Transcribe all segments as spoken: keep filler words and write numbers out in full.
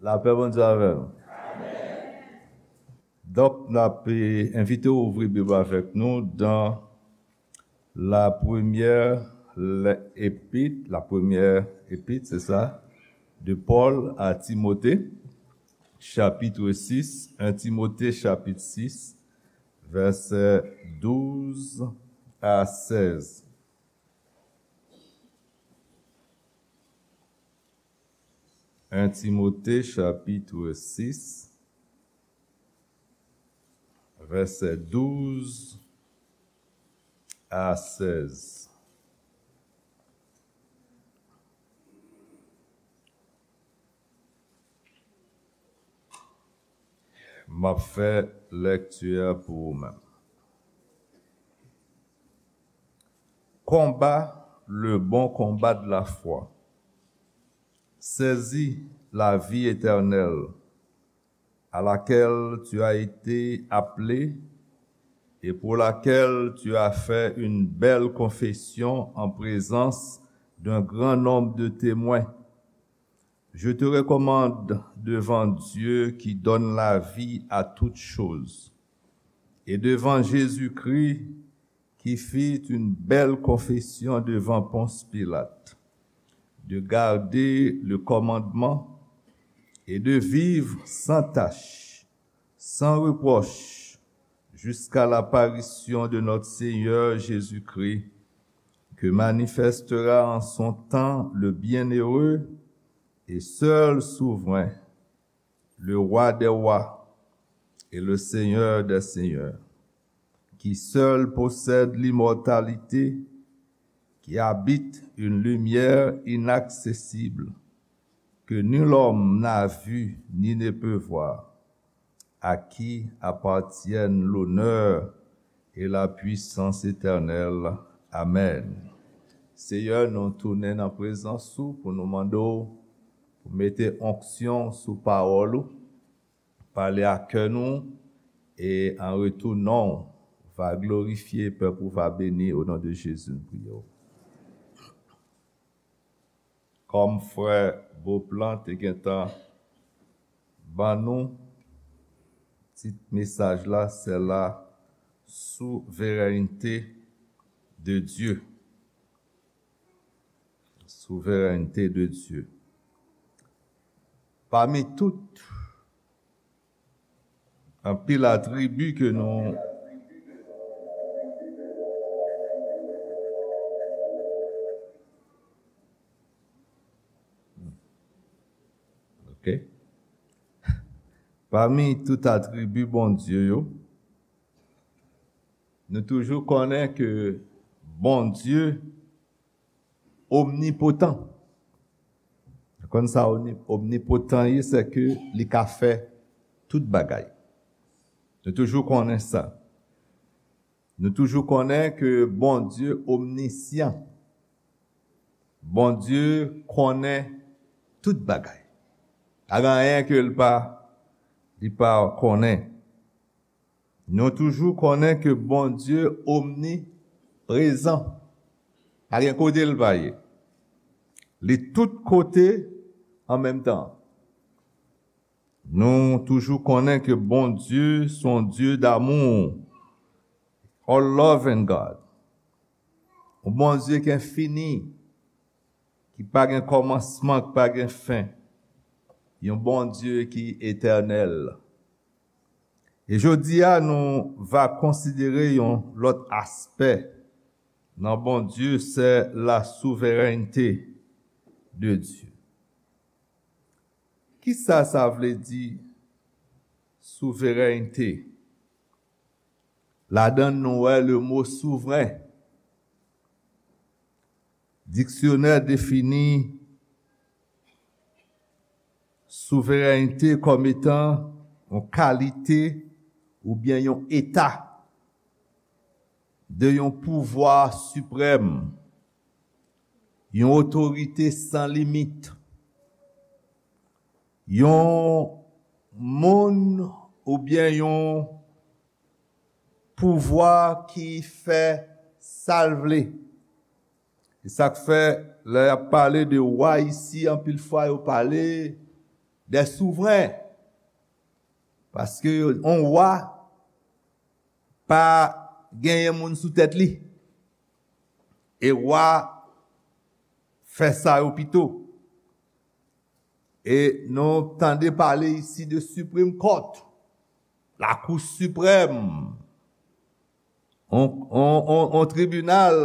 Lapè Bondye avè nou. Donk, n ap, eh, envite w ouvri Bib avèk nou dans la première le-, épître, la première épître, c'est ça, de Paul à Timothée, chapitre six, un Timothée chapitre six, versets douze à seize. Un Timothée chapitre six, versets douze à seize. M ap fè lèkti a pou ou menm. Combat le bon combat de la foi. Saisis la vie éternelle, à laquelle tu as été appelé et pour laquelle tu as fait une belle confession en présence d'un grand nombre de témoins. Je te recommande devant Dieu qui donne la vie à toutes choses, et devant Jésus-Christ qui fit une belle confession devant Ponce Pilate, de garder le commandement et de vivre sans tache, sans reproche, jusqu'à l'apparition de notre Seigneur Jésus-Christ, que manifestera en son temps le bienheureux et seul souverain, le Roi des rois et le Seigneur des seigneurs, qui seul possède l'immortalité, qui habite une lumière inaccessible, que nul homme n'a vu ni ne peut voir, à qui appartiennent l'honneur et la puissance éternelle. Amen. Seyè, nou tounen nan prezans ou pou nou mande w pou mete onksyon sou pawòl ou, pale a kè nou, e an retou non w va glorifye, pèp ou va beni, o non de Jezi nou priye w. Kòm frè Beauplan te gentan ban nou, tit mesaj la, c'est la souveraineté de Dieu. Souveraineté de Dieu. Pami tout anpil atribi ke nou, ok. Pami tout atribi Bondye yo, nou toujou konnen ke Bondye omnipotan. Ou konn sa omni-, omnipotan ye, se ke li ka fè tout bagay. Nou toujou konnen sa. Nou toujou konnen ke Bondye omnisyan. Bondye konnen tout bagay. Pa gen anyen ke l pa, li pa konnen. Nou toujou konnen ke Bondye omniprezan. Pa gen kote l pa ye. Li tout kote an menm tan. Nou toujou konnen ke Bondye se yon Dye d'amour, a loving God. Yon Bondye ki enfini, ki pa gen kòmansman, ki pa gen fen. Yon Bondye ki etènèl. E jodi a, nou va konsidere yon lòt aspè nan Bondye, c'est la souveraineté de Dieu. Kisa sa vle di, souveraineté? Ladan nou wè le mo souvren. Diksyonè defini souveraineté kòm etan yon kalite oubyen yon eta de yon pouvwa siprèm, yon otorite san limit, yon moun oubyen yon pouvwa ki fè sa l vle. E sa k fè, lè y ap pale de wa isi, anpil fwa yo pale des souverains. Paske yon wa pa genyen moun sou tèt li. E wa fè sa yo pito. E nou tande pale isi de Supreme Court, Lakou Siprèm, on, on, on, on tribinal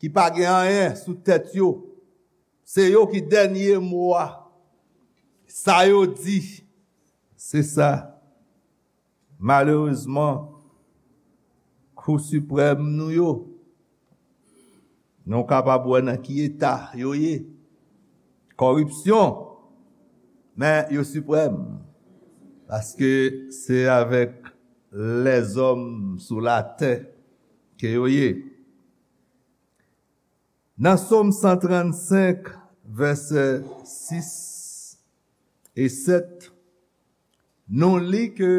ki pa gen anyen sou tèt yo. Se yo ki dènye mo a. Sa yo di, se sa. Malerezman, Kou Siprèm nou yo, nou kapab wè nan ki eta yo ye. Kòripsyon, men yo siprèm. Paske se avèk lèzòm sou latè ke yo ye. Nan Sòm san trannsenk, vèsè sis e sèt, nou li ke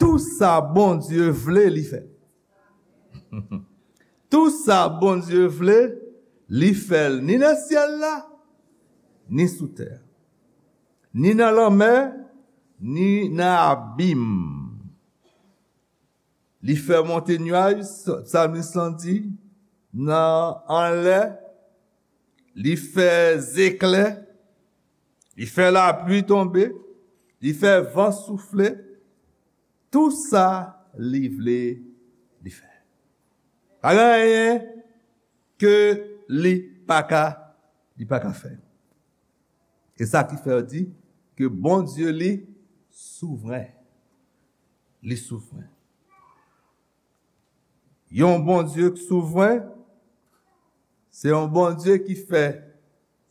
tou sa Bondye vle, li fè. Tou sa Bondye vle, li fè l, ni nan syèl la, ni sou tè a, ni nan lanmè, ni nan abim. Li fè monte nyaj, sa-, psalmis lan di, nan anlè, li fè zeklè, li fè lapli tonbe, li fè van soufle, tou sa li vle, li fè. Pa gen anyen ke li pa ka, li pa ka fè. E sa ki fè yo di ke Bondye li souvren. Li souvren. Yon Bondye ki souvren, se yon Bondye ki fè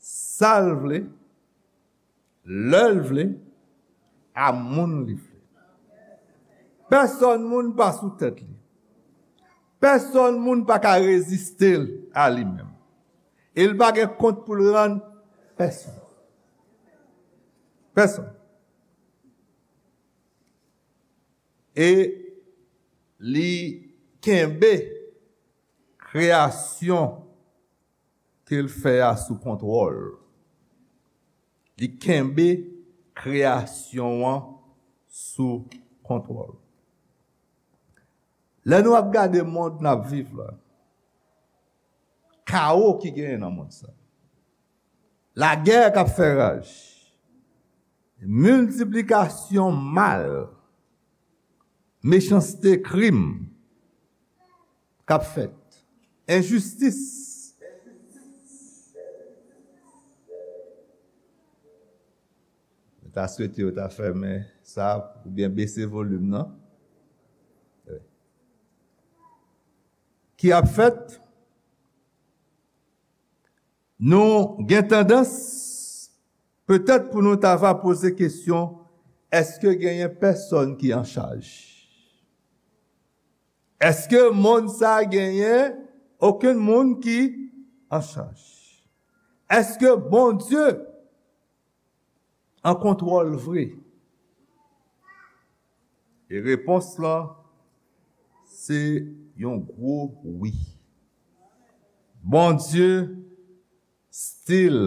sa l vle, lè l vle, a moun li vle. Pèsòn moun pa sou tèt li. Pèsòn moun pa ka reziste l a li menm. E l pa gen kont pou l rann pèsonn. Pèsonn. E li kenbe kreyasyon ke l fè a sou kontwòl. Li kenbe kreyasyon an sou kontwòl. Lè nou ap gade mond n ap viv la, kawo ki genyen nan mond sa, lagè k ap fè raj, miltiplikasyon mal, mechanste, krim k ap fèt, enjistis. Mwen ta swete yo ta fèmen sa oubyen bese volim nan. Wi. Ki ap fèt? Nou gen tandans, petèt, pou nou ta va poze kesyon, èske genyen pèsòn ki an chaj? Èske mond sa genyen okenn moun ki an chaj? Èske Bondye an kontwòl vre? E repons lan, se yon gwo wi. Bondye still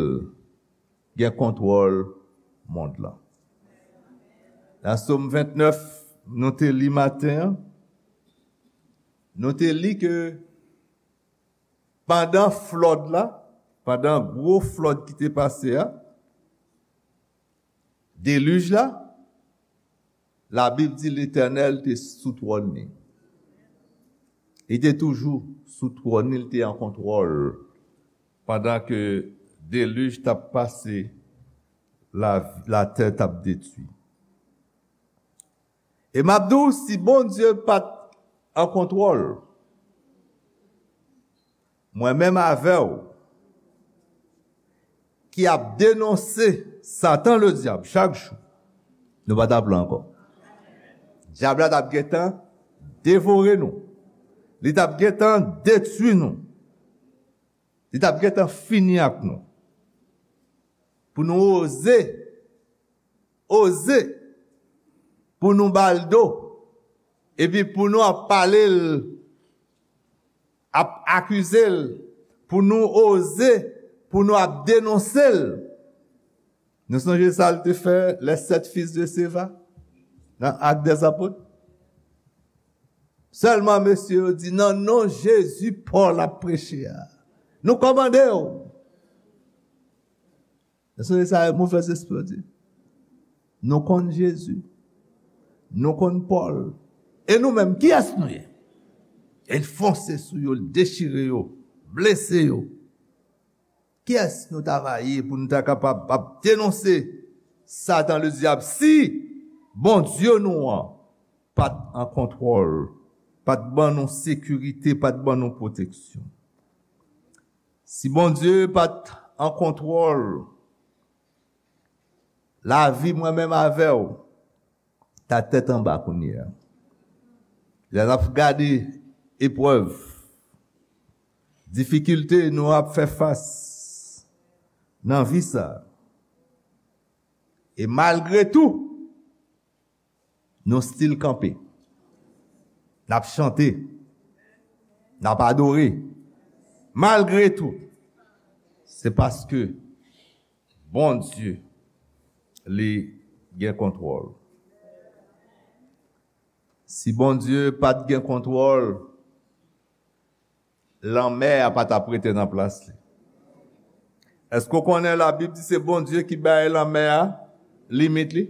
gen kontwòl mond lan. Nan Sòm vennèf, nou te li maten an, nou te li ke pandan flòd la, pandan gwo flòd ki te pase a, delij la, Labib di Letènèl te sou twòn li. Li te toujou sou twòn li, li te an kontwòl pandan ke delij t ap pase, la, latè t ap detwi. E m ap di w, si Bondye pa t an kontwòl, mwen menm avè w, ki ap denonse Satan Ledyab chak jou, nou pa t ap la ankò. Dyab la t ap gentan devore nou. Li t ap gentan detwi nou. Li t ap gentan fini ak nou. Pou nou oze, oze, pou nou ba l do, epi pou nou ap pale l, ap akize l, pou nou oze, pou nou ap denonse l. Nou sonje sa l te fè les sept fils de Sceva nan Actes des Apôtres? Sèlman mesye yo di, nan non Jezi, Pòl ap preche a. Nou kòmande w. Èske se sa movèzespri yo di? Nou konn Jezi. Nou konn Pòl. E nou menm, kiyès nou ye? E l fonse sou yo, l dechire yo, blese yo. Kiyès nou ta va ye pou nou ta kapab ap denonse Satan Ledyab si Bondye nou an pa t an kontwòl, pa t ban nou sekirite, pa t ban nou pwoteksyon? Si Bondye pa t an kontwòl lavi mwen menm avè w, ta tèt anba kounye a. Lè n ap gade eprèv, difikilte nou ap fè fas nan vi sa a, e malgre tou, nou still kanpe. N ap chante. N ap adore. Malgre tou, se paske Bondye, li gen kontwòl. Si Bondye pa t gen kontwòl, lanmè a pa t ap rete nan plas li. Èske w konnen Labib di se Bondye ki bay lanmè a limit li?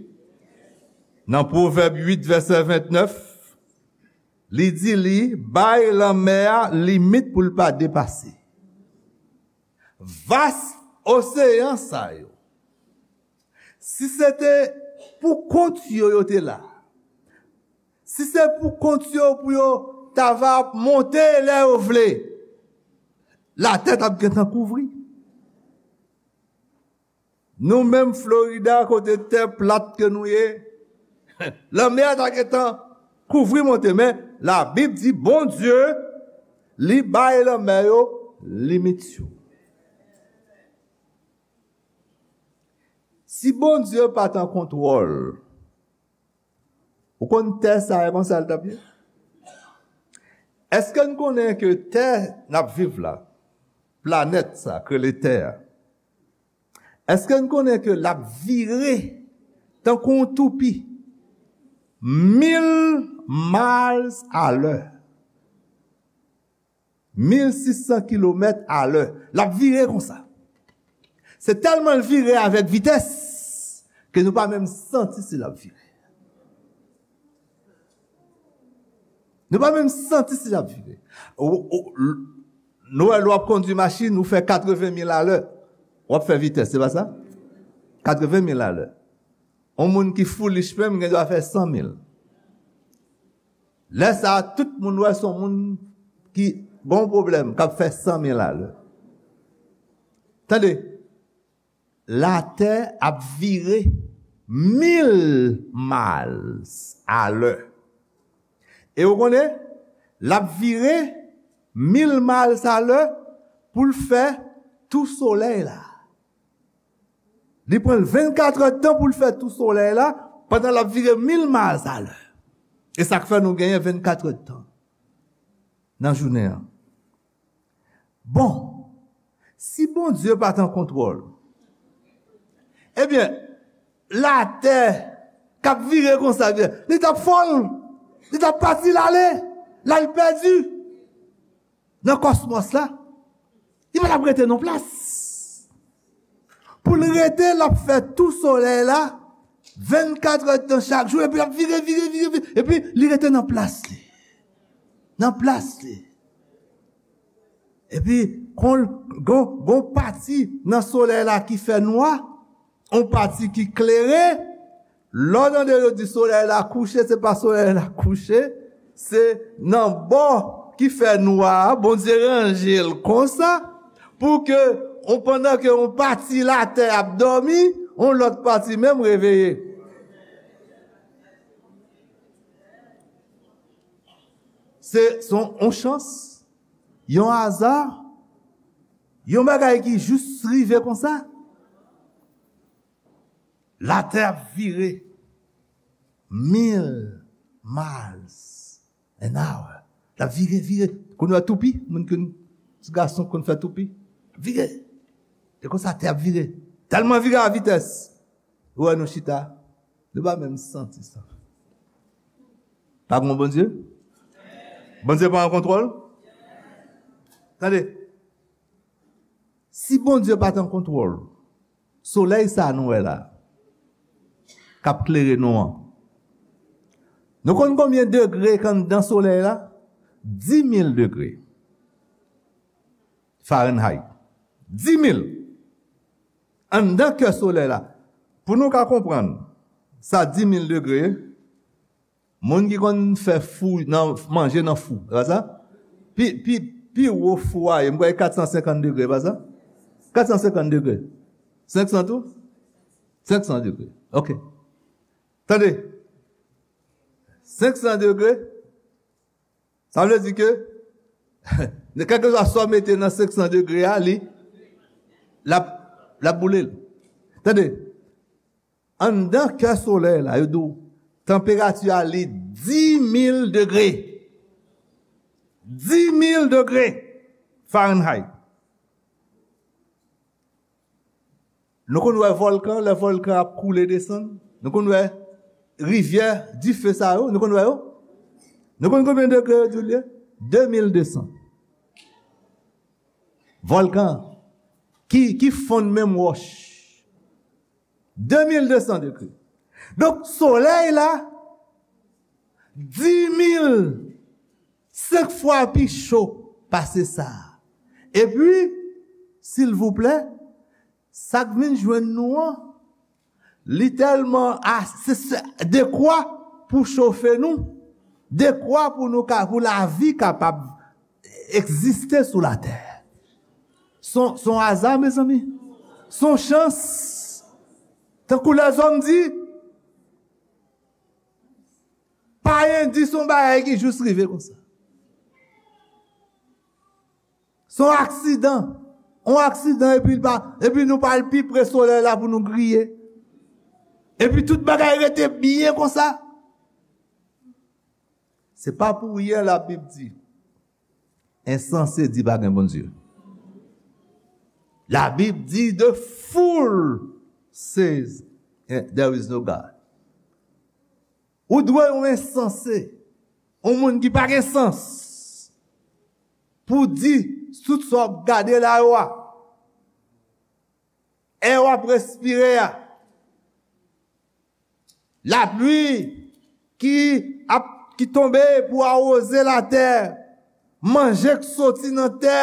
Nan Pwovèb uit, vèsè vennèf, li di li bay lanmè a limit pou l pa depase. Vas oseyan sa yo, si se te pou kont yo yo te la, si se pou kont yo pou yo ta va ap monte lè yo vle, latè t ap gentan kouvri. Nou menm Florida, kote tè plat ke nou ye, lanmè a ta gentan kouvri monte. Men Labib di Bondye, li bay lanmè yo limit yo. Si Bondye pa t an kontwòl, ou konn tè sa a, konsa l t ap ye? Èske n konnen ke tè n ap viv la, planèt sa k rele tè a, èske n konnen ke l ap vire tankou yon toupi mil miles à l'heure? Mil sis san kilomèt alè. L ap vire konsa. Se tèlman l vire avèk vitès ke nou pa menm santi si l ap vire. Nou pa menm santi si l ap vire. Ou, ou, l-, nou wè lè w ap kondui machin, ou fè katreven mil alè. W ap fè vitès, se pa sa? Katreven mil alè. Yon moun ki foolish menm gen dwa fè san mil. Lè sa a, tout moun wè se yon moun ki gen yon pwoblèm, k ap fè san mil alè. Tande, latè ap vire mil miles alè. E ou konnen, l ap vire mil miles alè pou l fè tou solèy la. Li pran l vennkat èdtan pou l fè tou solèy la, pandan l ap vire mil miles alè. E sa k fè nou genyen vennkat èdtan nan jounen an. Bon, si Bondye pa t an kontwòl, ebyen, latè k ap vire konsa, li t ap fò l, li t ap pati l ale, l al pèdi nan kòsmòs la. Li pa t ap rete nan plas. Pou l rete, l ap fè tou solèy la, vennkat èdtan chak jou, epi l ap vire, vire, vire, vire, epi li rete nan plas li. Nan plas li. Epi, kon, gon, gon pati nan solèy la ki fè nwa, yon pati ki klere, lè w tande yo di solèy la kouche, se pa solèy la kouche, se nan bò ki fè nwa a, Bondye ranje l konsa, pou ke, on, pandan ke yon pati latè ap dòmi, yon lòt pati menm reveye. Se, se yon, yon chans, yon aza, yon bagay ki jis rive konsa. Latè ap vire mil miles an hour. L ap vire, vire. Konn wè toupi, moun ki, ti gason konn fè toupi. Vire. E konsa tè ap vire. Tèlman vire a vitès. Ou wè nou chita, nou pa menm santi sa. Pa gen Bondye? Bondye pa an kontwòl? Tande, si Bondye pa t an kontwòl, solèy sa nou wè la, k ap klere nou an, nou konn konbyen degre k anndan solèy la? Dis mil degre Fahrenheit. Dis mil. Anndan kè solèy la. Pou nou ka konprann, sa dis mil degre, moun ki konn fè fou nan, manje nan fou, se pa sa? Pi, pi, pi wo fou a ye, m kwè kat san senkant degre, se pa sa? Kat san senkant degre. Senk san tou? Senk san degre. Ok. Tande. Senk san degre, sa vle di ke, kèlkeswa sa w mete nan senk san degre a, li, l ap, l ap boule l. Tande, anndan kè solèy la, yo di w, tanperati a li dis mil degre. Dis mil degre Fahrenheit. Nou konn wè vòlkan, lè vòlkan ap koule desann. Nou konn wè rivyè dife sa yo, nou konn wè yo? Nou konn konbyen degre yo di l ye? De mil de san. Vòlkan ki, ki fonn menm wòch. De mil de san degre. Donk, solèy la, dis mil, senk fwa pi cho pase sa. Epi, silvouplè, sa k vin jwenn nou an, li tèlman a-, se, se dekwa pou chofe nou, dekwa pou nou ka, pou lavi kapab egziste sou latè. Se yon, se yon aza, mezanmi. Se yon chans. Tankou lèzòm di, pa endis yon bagay ki jis rive konsa. Se yon aksidan. Yon aksidan, epi l pa, epi nou pa al pi pre solèy la pou nou griye. Epi tout bagay rete byen konsa. Se pa pou ryen Labib di, ensanse di pa gen Bondye. Labib di, the fool says there is no God. Ou dwe yon ensanse, yon moun ki pa gen sans, pou di tout sa w ap gade la yo a, è w ap respire a, lapli ki ap, ki tonbe pou awoze latè, manje k soti nan tè.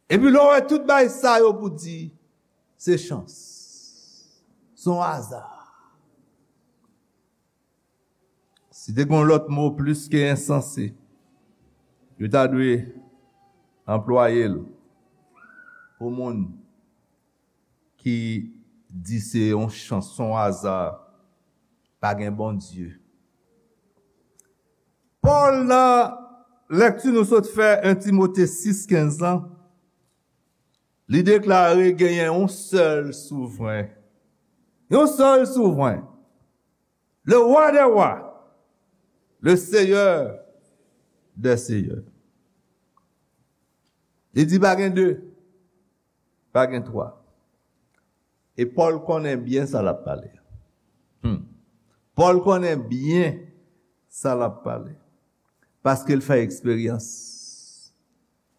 Epi lè w wè tout bagay sa yo pou di, se chans. Se yon aza. Si te gen yon lòt mo plis ke ensanse, yo ta dwe anplwaye l pou moun ki di se yon chans, se yon aza, pa gen Bondye. Pòl, nan lèkti nou sot fè, en Timote sis kenz lan, li deklare genyen yon sèl souvren. Yon sèl souvren. Le roi des rois, le seigneur des seigneurs. Li di pa gen de, pa gen twa. E Pòl konnen byen sa l ap pale. Hmm. Pòl konnen byen sa l ap pale. Paske l fè eksperyans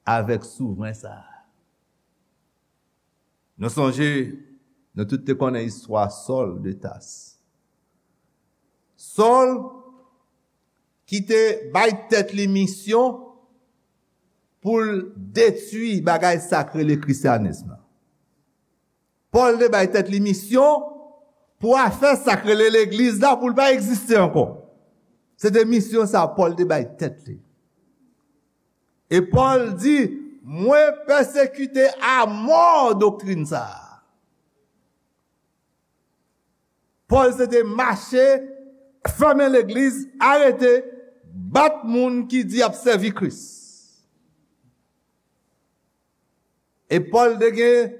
avèk souvren sa a. Nou sonje, nou tout te konnen istwa Sòl de Tas. Sòl ki te bay tèt li misyon pou l detwi bagay sa k rele krisyanis lan. Pòl te bay tèt li misyon pou afè sa k rele legliz la, pou l pa egziste ankò. Se te misyon sa Pòl te bay tèt li. E Pòl di, mwen pèsekite amò doktrin sa a. Pòl se te mache, fèmen legliz, arete, bat moun ki di y ap sèvi Kris. E Pòl te gen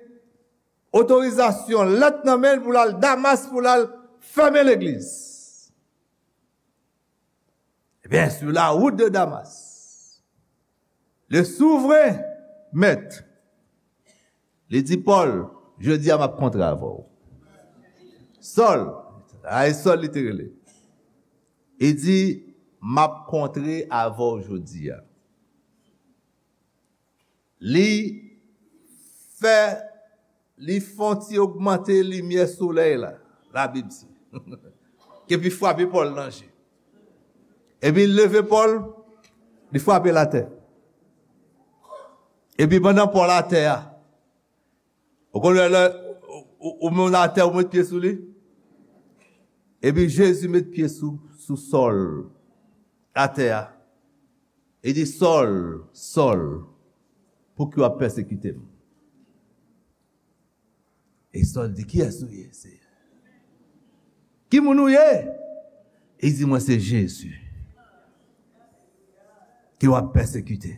otorizasyon, lèt nan men l pou l al Damas, pou l al fèmen legliz. Ebyen, sur la route de Damas, le souvren mèt, li di Pòl, Jodi a m ap kontre avè w. Sòl, a e Sòl li te rele. Li di, m ap kontre avè w jodi a. Li fè, li fè yon ti ogmante limyè solèy la, Labib di. Epi frape Pòl nan je. Epi l leve Pòl, li frape l atè. Epi pandan Pòl atè a, ou konn lè ou, ou, ou menm atè, ou met pye sou li? Epi Jezi met pye sou, sou Sòl, atè a. Li di, Sòl, Sòl, pouki w ap pèsekite m? E Sòl di, kiyès ou ye, Seyè? Ki moun ou ye? Li di, mwen se Jezi ke w ap pèsekite.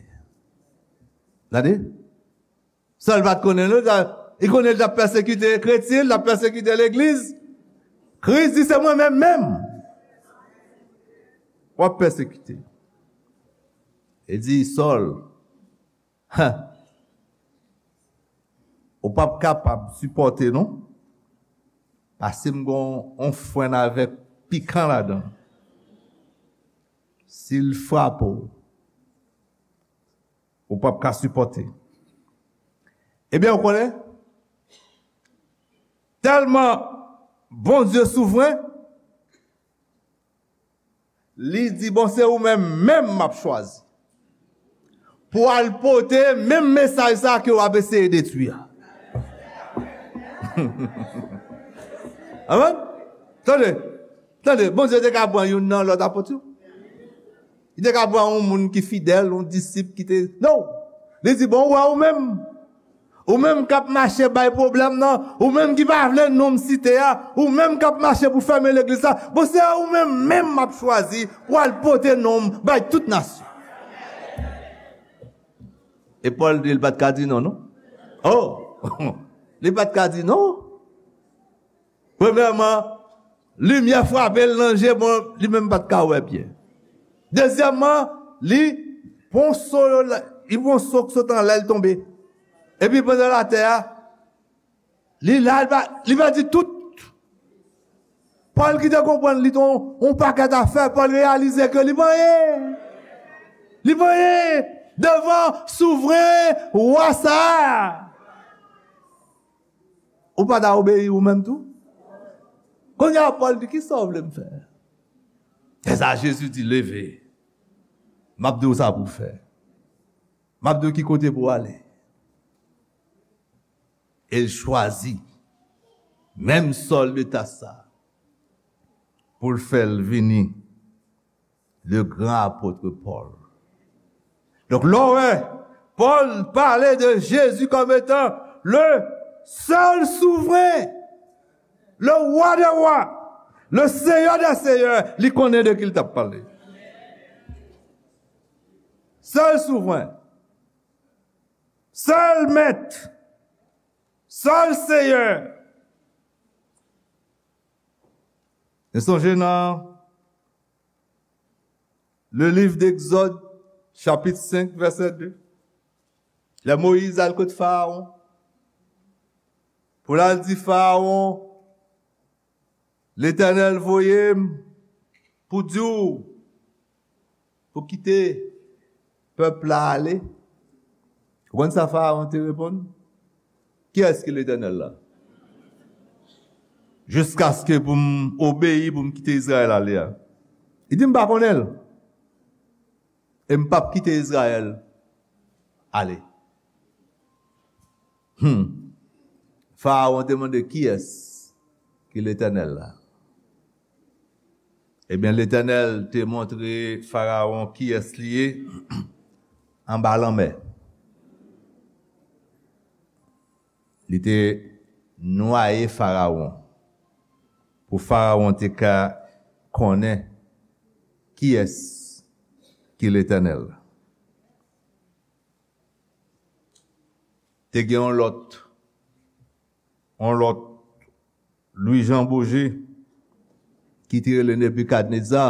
Gade. Sòl pa t konnen, non, li konnen l t ap pèsekite kretyen, l t ap pèsekite legliz. Kris di, se mwen menm menm w ap pèsekite. Li di, Sòl, ha, ou p ap kapab sipòte, non. Paske m gen yon fwèn avèk pikan ladan l. Si l frape w, ou p ap ka sipòte. Ebyen, ou konnen, tèlman Bondye souvren, li di, bon, se ou menm menm m ap chwazi pou al pote menm mesaj sa ke w ap eseye detwi a. Amen. Tande, tande, Bondye te ka pran youn nan lòt apot yo. Li te ka pran yon moun ki fidèl, yon disip ki te, non. Li di, bon, ou wè ou menm. Ou menm k ap mache bay pwoblèm nan, ou menm ki pa vle non m site a, ou menm k ap mache pou fèmen legliz la, bon, se ou menm menm m ap chwazi pou al pote non m bay tout nasyon. E Pòl di, li pa t ka di non, non. Oh! Li pa t ka di non. Premyèman, limyè frape l nan je, bon, li menm pa t ka wè byen. Dezyèmman, li pran so, li pran so k sot anlè l tonbe. Epi pandan l atè a, li la, li pa, li pèdi tout. Pòl ki te konprann li te yon, yon pakèt afè, Pòl reyalize ke li pa anyen. Li pa anyen devan souvren wa sa a. Ou pa ta obeyi ou menm tou? Kounye a, Pòl di, kisa w vle m fè? Se sa Jezi di, leve. M ap di w sa pou w fè. M ap di w ki kote pou w ale. E l chwazi menm Sòl de Tas sa pou l fè l vini le grand apôtre Paul. Donk, lè w wè Pòl pale de Jezi kòm etan le sèl souvren, le wa dè wa, le seyè dè seyè, li konnen de ki l t ap pale. Sèl souvren, sèl mèt, sèl seyè. Nou sonje nan le livre d'Exode, chapitre cinq, verset deux. Lè Moyiz al kot Farawon, pou l al di Farawon, Letènèl voye m pou di w pou kite pèp la ale. Ou konn sa Farawon te reponn? Kiyès ki Letènèl la? Jiskaske pou m obeyi, pou m kite Izrayèl ale a. Li di, m pa konnen l. E m p ap kite Izrayèl ale. Hmm. Farawon te mande, kiyès ki Letènèl la? Ebyen, Letènèl te montre Farawon kiyès li ye anba lanmè. Li te nwaye Farawon pou Farawon te ka konnen kiyès ki Letènèl la. Te gen yon lòt, yon lòt Louis Jean Beaugé ki te rele Nebikadneza.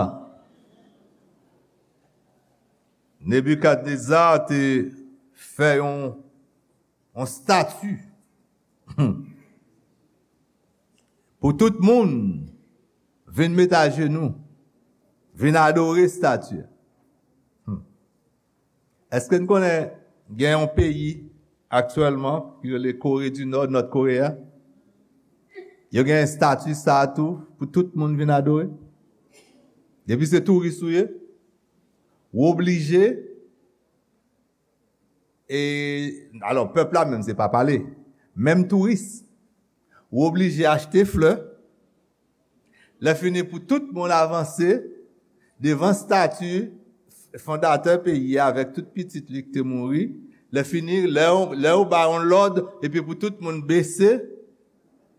Nebikadneza te fè yon, yon estati. pou tout moun vin met ajenou, vin adore estati a. Hmm. Èske n konnen gen yon peyi aktyèlman ki rele Kore di Nò, Nòt Koreya? Yo gen estati sa a tou pou tout moun vin adore. Depi se touris ou ye, ou oblije, e, alò, pèp la menm, se pa pale. Menm touris, ou oblije achte flè. Lè fini pou tout moun avanse devan estati fondatè peyi a avèk tout pitit li ki te mouri. Lè fini, lè yo, lè yo ba yon lòd, epi pou tout moun bese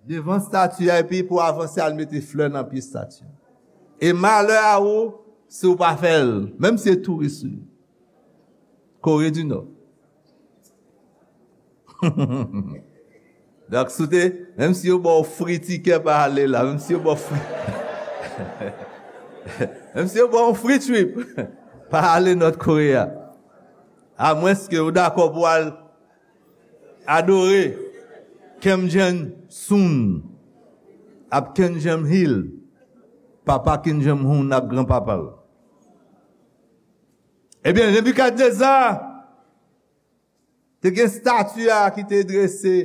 devan estati a, epi pou avanse al mete flè nan pye estati a. E malè a ou si w pa fè l, menm si se touris ou ye. Kore di Nò. Donk, si w te, menm si yo ba w fri tikè, pa ale la. Menm si yo ba w fri, menm si yo ba w fri trip, pa ale Nòt Koreya. Amwenske ou dakò pou w al adore Kim Jong-un, ap Kim Jong-il, papa Kim Jong-un ak granpapa l. Ebyen, Nebikadneza te gen estati a ki te drese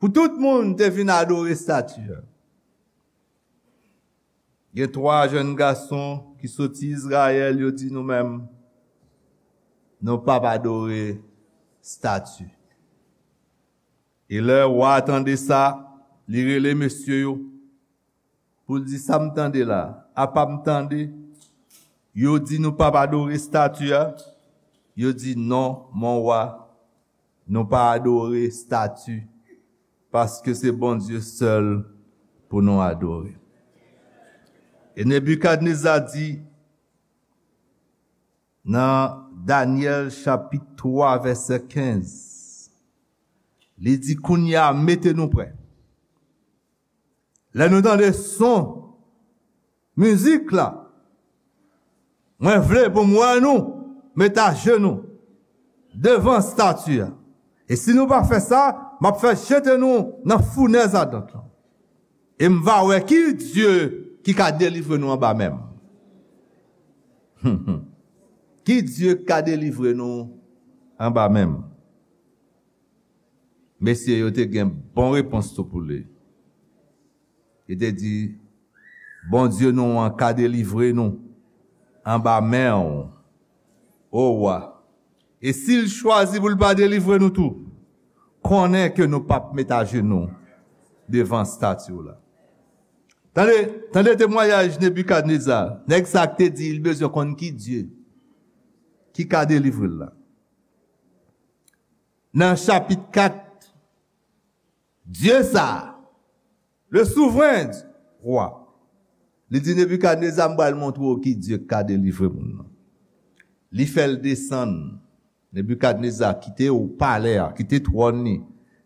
pou tout moun te vin adore estati a. Gen twa jèn gason ki soti Izrayèl, yo di, "Nou menm, nou p ap adore estati." E lè wa a tande sa, li rele mesye yo pou l di, "Sa m tande la, apa m tande yo di nou p ap adore estati a?" Yo di, "Non, mon wa, nou pa adore estati, paske se Bondye sèl pou nou adore." E Nebikadneza di nan Danyèl chapit twa, vèsè kenz, li di, "Kounye a, mete nou prè. Lè nou tande son mizik la, mwen vle pou m wè nou met ajenou devan estati a. E si nou pa fè sa, m ap fè jete nou nan founèz adant lan. E m va wè ki Dye ki ka delivre nou anba men m." Ki Dye ki ka delivre nou anba men m? Mesye yo te gen bon repons tou pou li. Li te di, "Bondye nou an ka delivre nou anba men w, o wa. E si l chwazi pou l pa delivre nou tou, konnen ke nou p ap met ajenou devan estati w la." Tande, tande temwayaj Nebikadneza. Nèg sa k te di li bezwen konn ki Dye ki ka delivre l la. Nan chapit kat, Dye sa, le souvren wa, li di Nebikadneza, "M pral montre w ki Dye k ka delivre moun nan." Li fè l desann. Nebikadneza kite palè a, kite twòn li,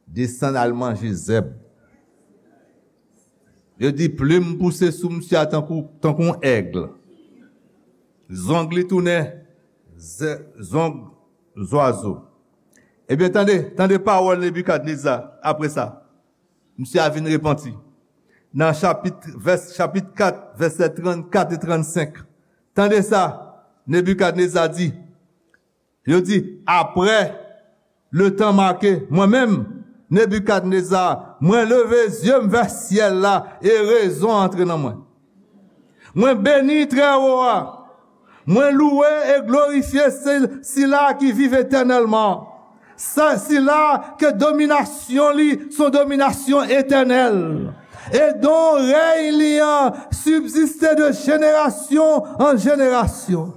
desann al manje zèb. Yo di plim pouse sou misye a tankou, tankou yon èg. Zong li tounen zè-, zong zwazo. Ebyen, tande, tande pawòl Nebikadneza apre sa. Misye a vin repanti. Nan chapit, vès, chapit kat, vèsè trannkat e trannsenk. Tande sa Nebikadneza di. Yo di, apre le tan make, mwen menm, Nebikadneza, mwen leve zye m vè syèl la e rezon antre nan mwen. Mwen beni Trèwo a. Mwen louwe e glorifye se-, sila ki viv etènèlman. Sa, sila ke dominasyon li se yon dominasyon etènèl. E don rèy li an sibziste de jenerasyon an jenerasyon.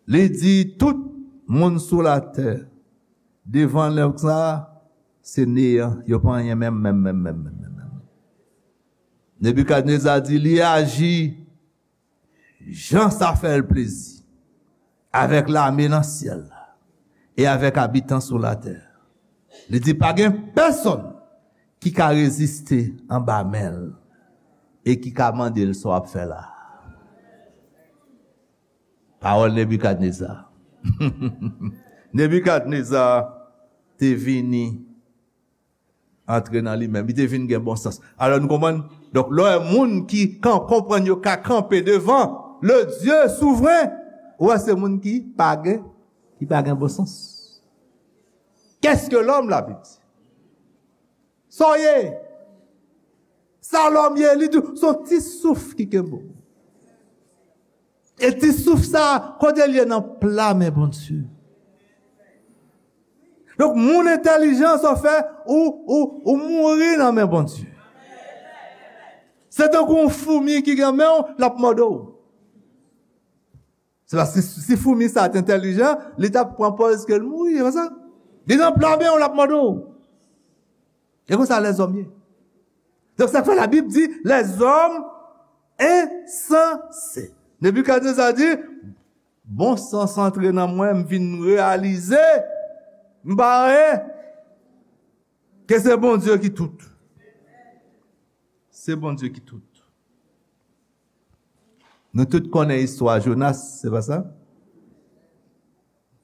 Li di tout moun sou latè, devan nèg sa, se neyan, yo pa anyen menm, menm, menm, menm, menm, menm, menm. Nebikadneza di li aji jan sa fè l plezi avèk lame nan syèl la e avèk abitan sou latè. Li di pa gen pèsonn ki ka reziste anba men l e ki ka mande l sa w ap fè la. Pawòl Nebikadneza. Nebikadneza te vini antre nan li menm. Li te vin gen bon sans. Alò, nou konprann? Donk, lè w wè moun ki kan-, konprann yo ka kanpe devan le Dieu souvren, ou wè se moun ki pa gen, ki pa gen bon sans. Qu'est-ce que l'homme, la Bible dit? Sa w ye? Sa lòm ye? Li di w, se yon ti souf ki kenbe w. E ti souf sa, kote l ye? Nan pla men Bondye. Donk, moun entèlijan, sa w fè, ou, ou, ou mouri nan men Bondye. Se tankou yon foumi ki gen men w, l ap mòde w. Se paske si foumi sa te entèlijan, li t ap pran pòz ke l mouri, se pa sa? Li nan pla men w, l ap mòde w. E konsa lèzòm ye. Donk, sa k fè Labib di, lèzòm ensanse. Nebikadneza di, bon sans antre nan mwen, m vin reyalize, m pa anyen, ke se Bondye ki tout. Se Bondye ki tout. Nou tout konnen istwa Jonas, se pa sa?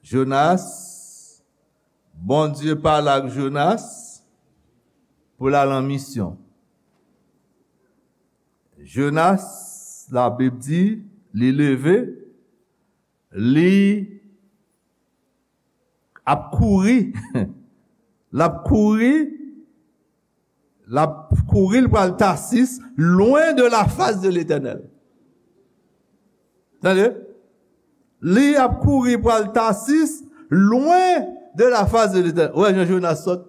Jonas, Bondye pale ak Jonas pou l al an misyon. Jonas, Labib di, li leve, li ap kouri. L ap kouri, l ap kouri, l pral Tasis, loin de la face de l'Éternel. Tande? Li ap kouri pral Tasis, loin de la face de l'Éternel. Ou wè jan Jonas sòt?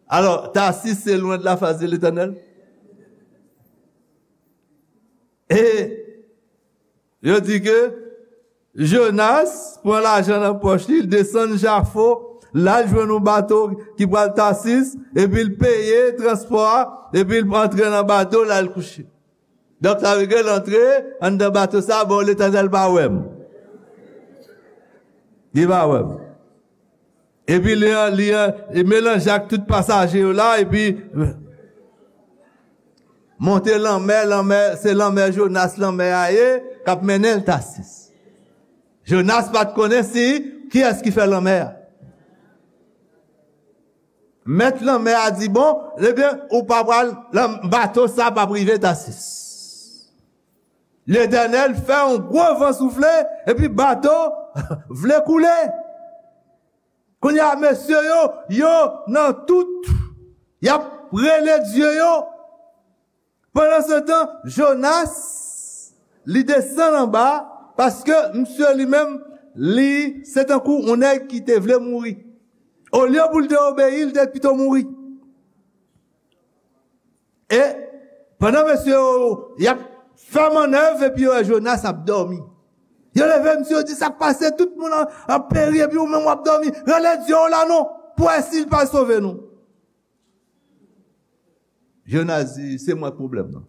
Alò, Tasis, se loin de la face de l'Éternel? E yo di ke Jonas pran lajan nan pòch li, l desann Jafo, l al jwenn yon bato ki pral Tasis, epi l peye transpò a, epi l antre nan bato, l al kouche. Donk, sa vle di l antre anndan bato sa, bon, Letènèl pa wè m. Li pa wè m. Epi li, li, li melanje ak tout pasaje yo la, epi monte lanmè, lanmè, se lanmè Jonas, lanmè a ye, k ap mennen l Tasis. Jonas pa t konnen si kiyès ki fè lanmè a. Mèt lanmè a di, bon, ebyen, ou pa pral, lan-, bato sa p ap rive Tasis. Letènèl fè yon gwo van soufle, epi bato vle koule. Kounye a, mesye yo, yo nan tout, y ap rele dye yo. Pandansetan, Jonas, li desann anba, paske misye li menm, li, se tankou yon nèg ki te vle mouri. Olye pou l te obeyi, li te pito mouri. E pandan mesye yo, y ap fè mannèv, epi yo wè Jonas ap dòmi. Yo leve misye, yo di, "Sa k pase? Tout moun an, an peri, epi ou menm w ap dòmi. Rele dye w la non, pou wè si l pa sove nou." Jonas di, "Se mwen k pwoblèm nan."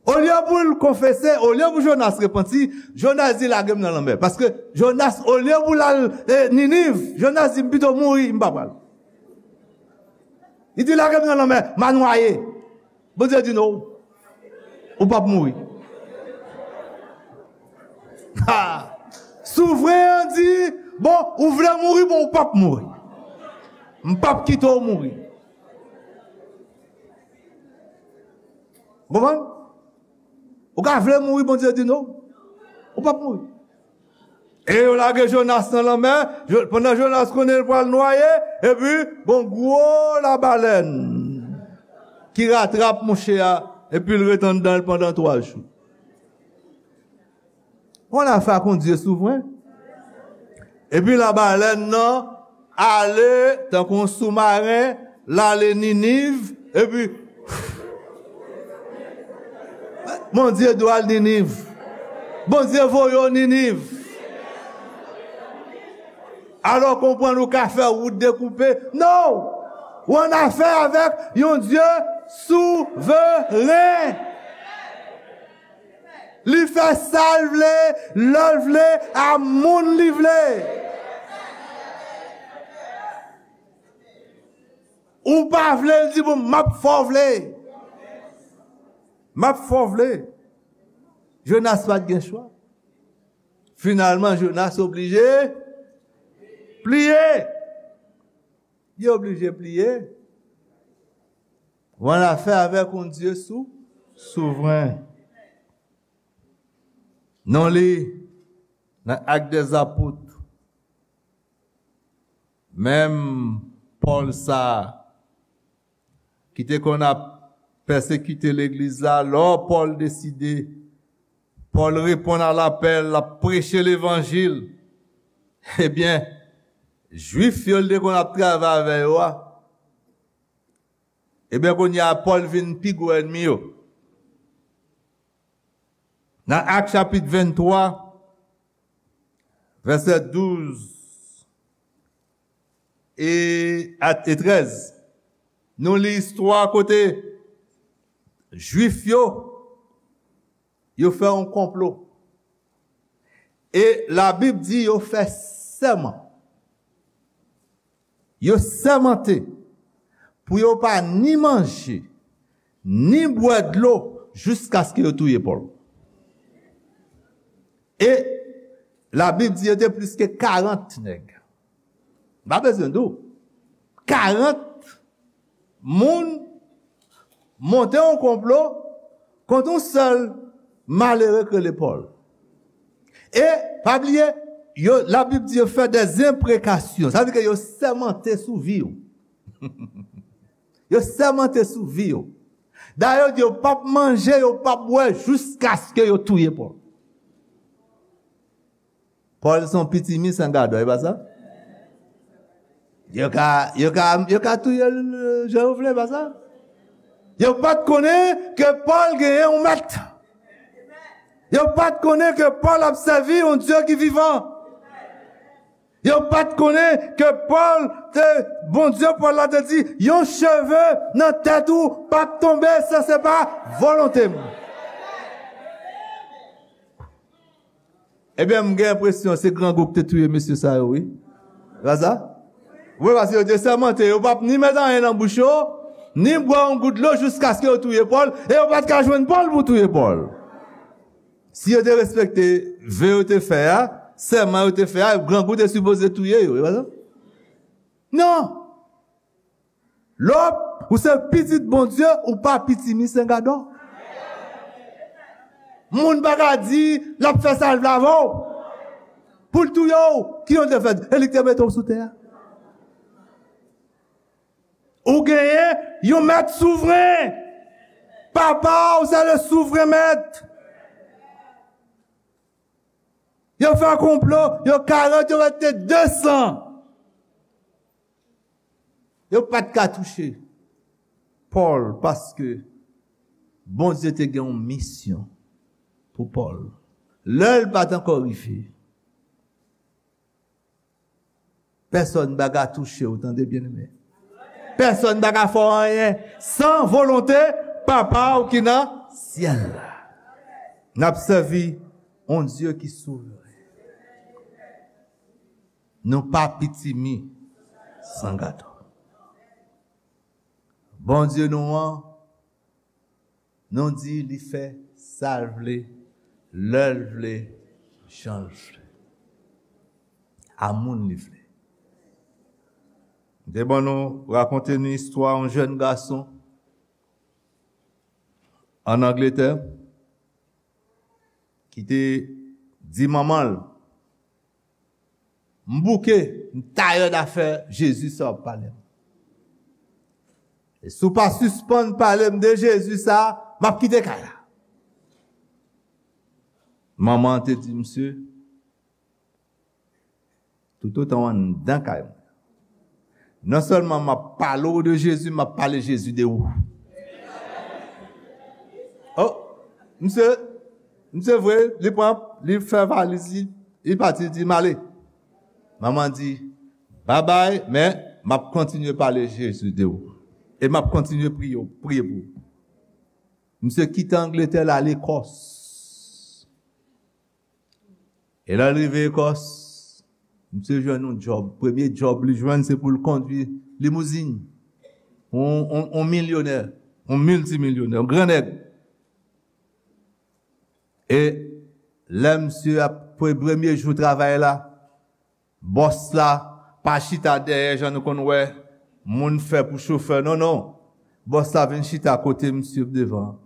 Olye pou l konfese, olye pou Jonas repanti, Jonas di, "Lage m nan lanmè." Paske Jonas, olye pou l al, e, Niniv, Jonas di, "M pito mouri, m pa pral." Li di, "Lage m nan lanmè, m a nwaye." Bondye di, "Non, ou p ap mouri." Ha! Souvren an di, "Bon, ou vle mouri, bon, ou p ap mouri. M p ap kite w mouri." Ou konprann? Ou ka vle mouri, Bondye di, "Non, ou p ap mouri." E yo lage Jonas nan lanmè. Jo-, pandan Jonas konnen l pral nwaye, epi gon gwo labalèn ki ratrap mouche a, epi l ret anndan l pandan twa jou. Yon afè ak yon Dye souvren. Epi labalèn nan ale tankou yon soumaren, l ale Niniv, epi Bondye di w al Niniv. Bondye voye w Niniv. Alò, konprann ou ka fè wout dekoupe. Non! Ou annafè avèk yon Dye souvren. Li fè sa l vle, lè l vle, a moun li vle. Ou pa vle, l di, "Bon, m ap fè w vle. M ap fè w vle." Jonas pa t gen chwa. Finalman, Jonas oblije pliye. Li oblije pliye. Ou annafè avèk yon Dye sou, souvren. Nou li nan Actes des Apôtres, menm Pòl sa a, ki te konn ap pèsekite legliz la, lò Pòl deside, Pòl reponn a lapèl, l ap preche levanjil. Ebyen, Jwif yo l te konn ap travay avè yo a, ebyen, kounye a, Pòl vin pi gwo ènmi yo. Nan Ak chapit venntwa, vèsè douz e, a, e trèz, nou li istwa kote Jwif yo, yo fè yon konplo. E Labib di yo fè sèman. Yo sèmante pou yo pa ni manje, ni bwè dlo jiskaske yo touye Pòl. E Labib di yo te plis ke karant nèg. M pa bezwen di w. Karant moun monte yon konplo kont yon sèl malere k rele Pòl. E, pa bliye, yo, Labib di yo fè dèzenprekasyon. Sa vle di ke yo sèmante sou vi w. Yo sèmante sou vi w. Dayè, yo di yo p ap manje, yo p ap bwè jiskaske yo touye Pòl. Pòl se yon pitimi san gadò, e pa sa? Yo ka, yo ka, yo ka touye l jan yo vle, e pa sa? Yo pa t konnen ke Pòl genyen yon mèt. Yo pa t konnen ke Pòl ap sèvi yon Dye ki vivan. Yo pa t konnen ke Pòl te, Bondye Pòl la te di, yon cheve nan tèt ou p ap tonbe san se pa volonte m. Ebyen, m gen enpresyon se grangou ki te touye mesye sa yo, wi. Pa sa? Wi, paske yo te sèmante, yo p ap ni met anyen nan bouch yo, ni bwè yon gout dlo jiskaske yo touye Pòl, e yo pa t ka jwenn Pòl pou touye Pòl. Si yo te respekte ve yo te fè a, sèman yo te fè a, grangou te sipoze touye yo, e pa sa? Non! Lè w, ou se pitit Bondye, ou pa pitimi sen gadò. Moun pa ka di l ap fè sa l vle avè w. Pou l touye w, ki yon te fè? E li k te mete w sou tè a. Ou genyen yon mèt souvren. Papa w se le souvren mèt. Yo fè konplo, yo karant, yo mete de san. Yo pa t ka touche Pòl paske Bondye te gen yon misyon pou Pòl. Lè l pa t ankò rive, pèsonn pa ka touche w, tande byeneme. Pèsonn pa ka fè w anyen san volonte Papa w ki nan syèl la. N ap sèvi yon Dye ki souvren. Nou pa pitimi san gadò. Bondye nou an, nou di li fè sa l vle, lè l vle, jan l vle, a moun li vle. M te ban nou, rakonte nou istwa yon jèn gason ann Angletè ki te di manman l, m bouke, m tayè afè Jezi sa w ap pale m. E si w pa sispann pale m de Jezi sa, m ap kite kay la. Manman an te di misye, toutotan w anndan kay mwen, non sèlman m ap pale w de Jezi, m ap pale Jezi de ou. Oh, misye, misye vre, li pran, li fè valiz li, li pati, li di, "M ale." Manman di, "Babay, men m ap kontinye pale Jezi de ou. E m ap kontinye priye, priye pou ou." Misye kite Angletè, l ale Kòs. E lè l rive Ekòs, misye jwenn yon djòb. Premye djòb li jwenn, se pou l kondwi limouzin. Yon, yon, yon milyonè, yon miltimilyonè, yon gran nèg. E lè misye ap, pre-, premye jou travay la, bòs la pa chita dèyè, jan nou konn wè, Moun fè pou chofè, non, non. Bòs la vin chita kote misye devan.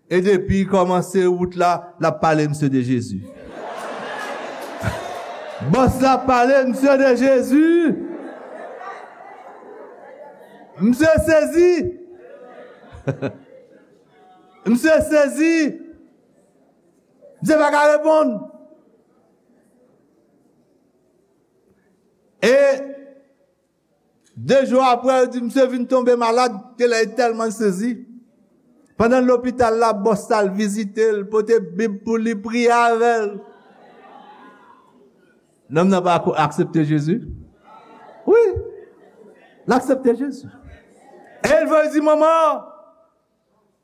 E depi l kòmanse wout la, l ap pale misye de Jezi. Bòs la ap pale misye de Jezi. Misye sezi. Misye sezi. Misye pa ka reponn. E de jou apre, yo di misye vin tonbe malad, ke lè li tèlman sezi. Pandan l lopital la, bòs la al vizite l, pote Bib pou li, priye avè l. Nonm nan pa ko-, aksepte Jezi? Wi, l aksepte Jezi. E l voye di, manman,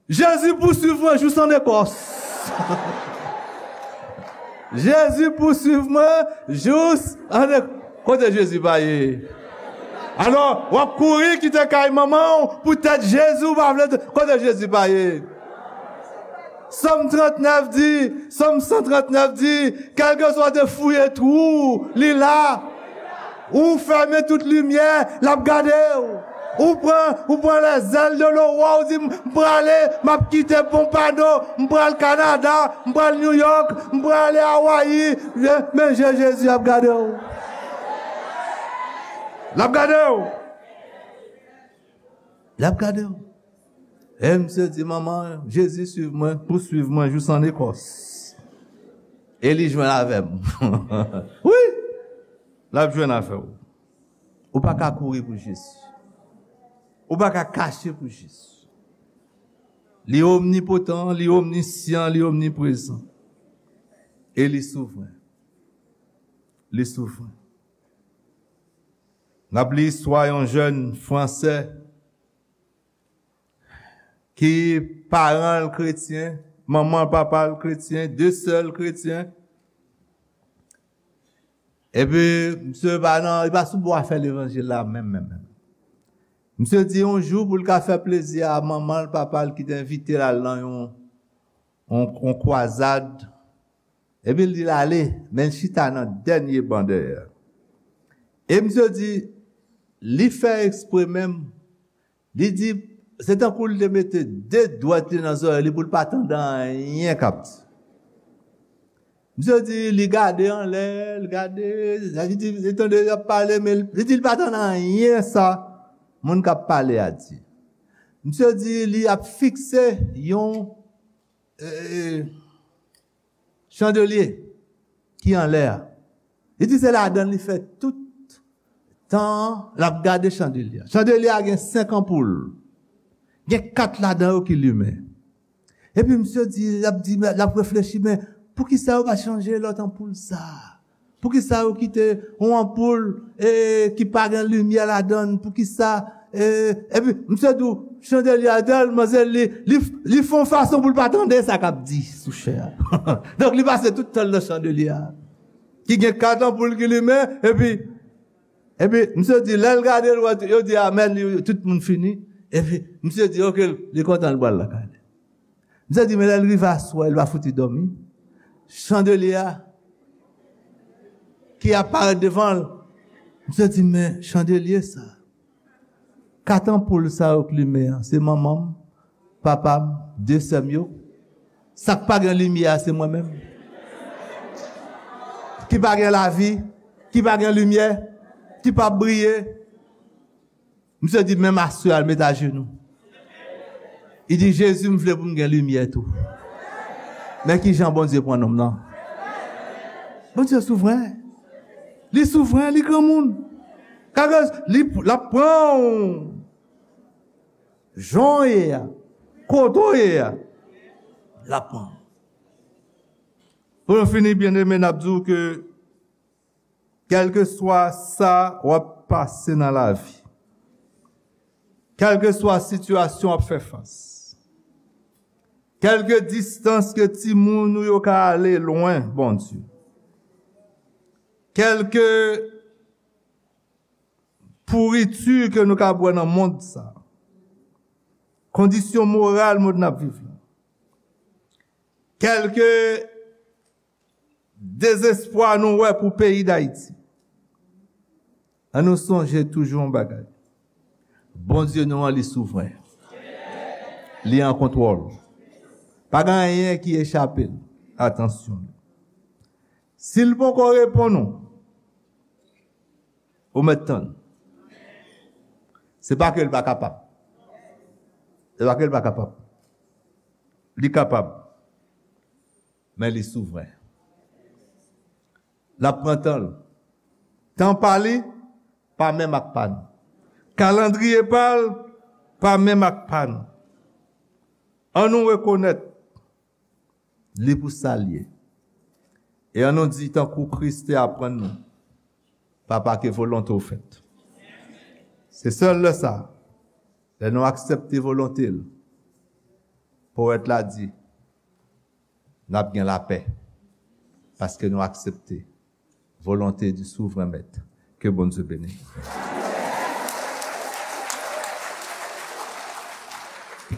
Jezi pouswiv mwen jous an Ekòs. Jezi pouswiv mwen jous an Ekòs. Kote Jezi pa ye? Alò, w ap kouri kite kay manman w, poutèt Jezi w pa vle. Kote Jezi pa ye? Sòm trannèf di, Sòm san trannèf di, kèlkeswa w te fouye twou, li la. Ou fèmen tout limyè, l ap gade w. Ou pran, ou pran les ailes de l'aurore, ou di, "M prale, m ap kite Pompano, m pral Kanada, m pral New York, m prale Hawaii." Men, men je Jezi ap gade w. L ap gade w. L ap gade w. E misye di, "Manman, Jezi swiv mwen, pouswiv mwen jous an Ekòs. E li jwenn avè m." Wi, l ap jwenn avè w. Ou pa ka kouri pou Jezi. Ou pa ka kache pou Jezi. Li omnipotan, li omnisyan, li omniprezan. E li souvren. Li souvren. N ap li istwa yon jèn fransè ki paran l kretyen, manman l, papa l kretyen, de sè l kretyen. Epi, misye pa nan, li pa sou bò afè levanjil la menm, menm, menm. Misye di yon jou pou l ka fè plezi a manman l, papa l ki te envite l al nan yon, yon, yon kwazad. Epi l di l ale, men l chita nan dènye ban dèyè. E misye di, li fè ekspre menm. Li di, se tankou l te mete de dwèt li nan zòrèy li pou l pa tande anyen k ap di. Misye di, li gade anlè, li gade, li di, li tande y ap pale, men li di, li pa tande anyen sa moun k ap pale a di. Misye di, li ap fikse yon, e, e, chandelye ki anlè a. Li di se ladan l li fè tout tan an, l ap gade chandelye a. Chandelye a gen senk anpoul. Gen kat ladan yo ki limen. Epi misye di, l ap di, l ap reflechi, men poukisa yo pa chanje lòt anpoul sa a? Poukisa yo kite yon anpoul, e, ki pa gen limyè ladan l? Poukisa, e, epi misye di w, chandelye a tèlman se li, li, li fè yon fason pou l pa tande sa k ap di sou chè a. Donk, li pase tout tan l nan chandelye a. Ki gen kat anpoul ki limen, epi, epi misye di, lè l gade l, wè, yo di amèn, li, tout moun fini. Epi misye di, oke, li kontan, l pral lakay li. Misye di, men lè l rive aswè, l pa fouti dòmi. Chandelye a ki ap parèt devan l. Misye di, men chandelye sa, kat anpoul sa yo k limen an, se manman m, papa m, de sè m yo. Sa k pa gen limyè a, se mwen menm. Ki pa gen lavi, ki pa gen limyè, ki p ap briye. Misye di, menm aswè a, l met ajenou. Li di, Jezi, m vle pou m gen limyè tou. Men ki jan Bondye pran nonm nan. Bondye souvren. Li souvren, li granmoun. Kage li, l ap pran w. Jan w ye a, kote w ye a, l ap pran w. Pou nou fini, byeneme, n ap di w ke kèlkeswa sa w ap pase nan lavi, kèlkeswa sitiyasyon w ap fè fas, kèlke distans ke timoun ou yo ka ale lwen Bondye, kèlke pouriti ke nou ka bwè nan mond sa, kondisyon moral mond n ap viv la, kèlke dezespwa nou wè pou peyi Dayiti, ann nou sonje toujou yon bagay. Bondye nou an, li souvren. Li an kontwòl. Pa gen anyen ki echape l atansyon. Si l poko reponn ou, ou mèt tann. Se pa ke l pa kapab. Se pa ke l pa kapab. Li kapab. Men li souvren. L ap pran tan l. Tan pa li pa menm ak pa n. Kalandriye pa l pa menm ak pa n. An nou rekonèt li pou sa l ye. E an nou di, tankou Kris te aprann nou, Papa, ke volonte w fèt. Se sèl lè sa, lè nou aksepte volonte l, powèt la di, n ap gen lapè, paske nou aksepte volonte di souvren mèt. Ke Bondye beni.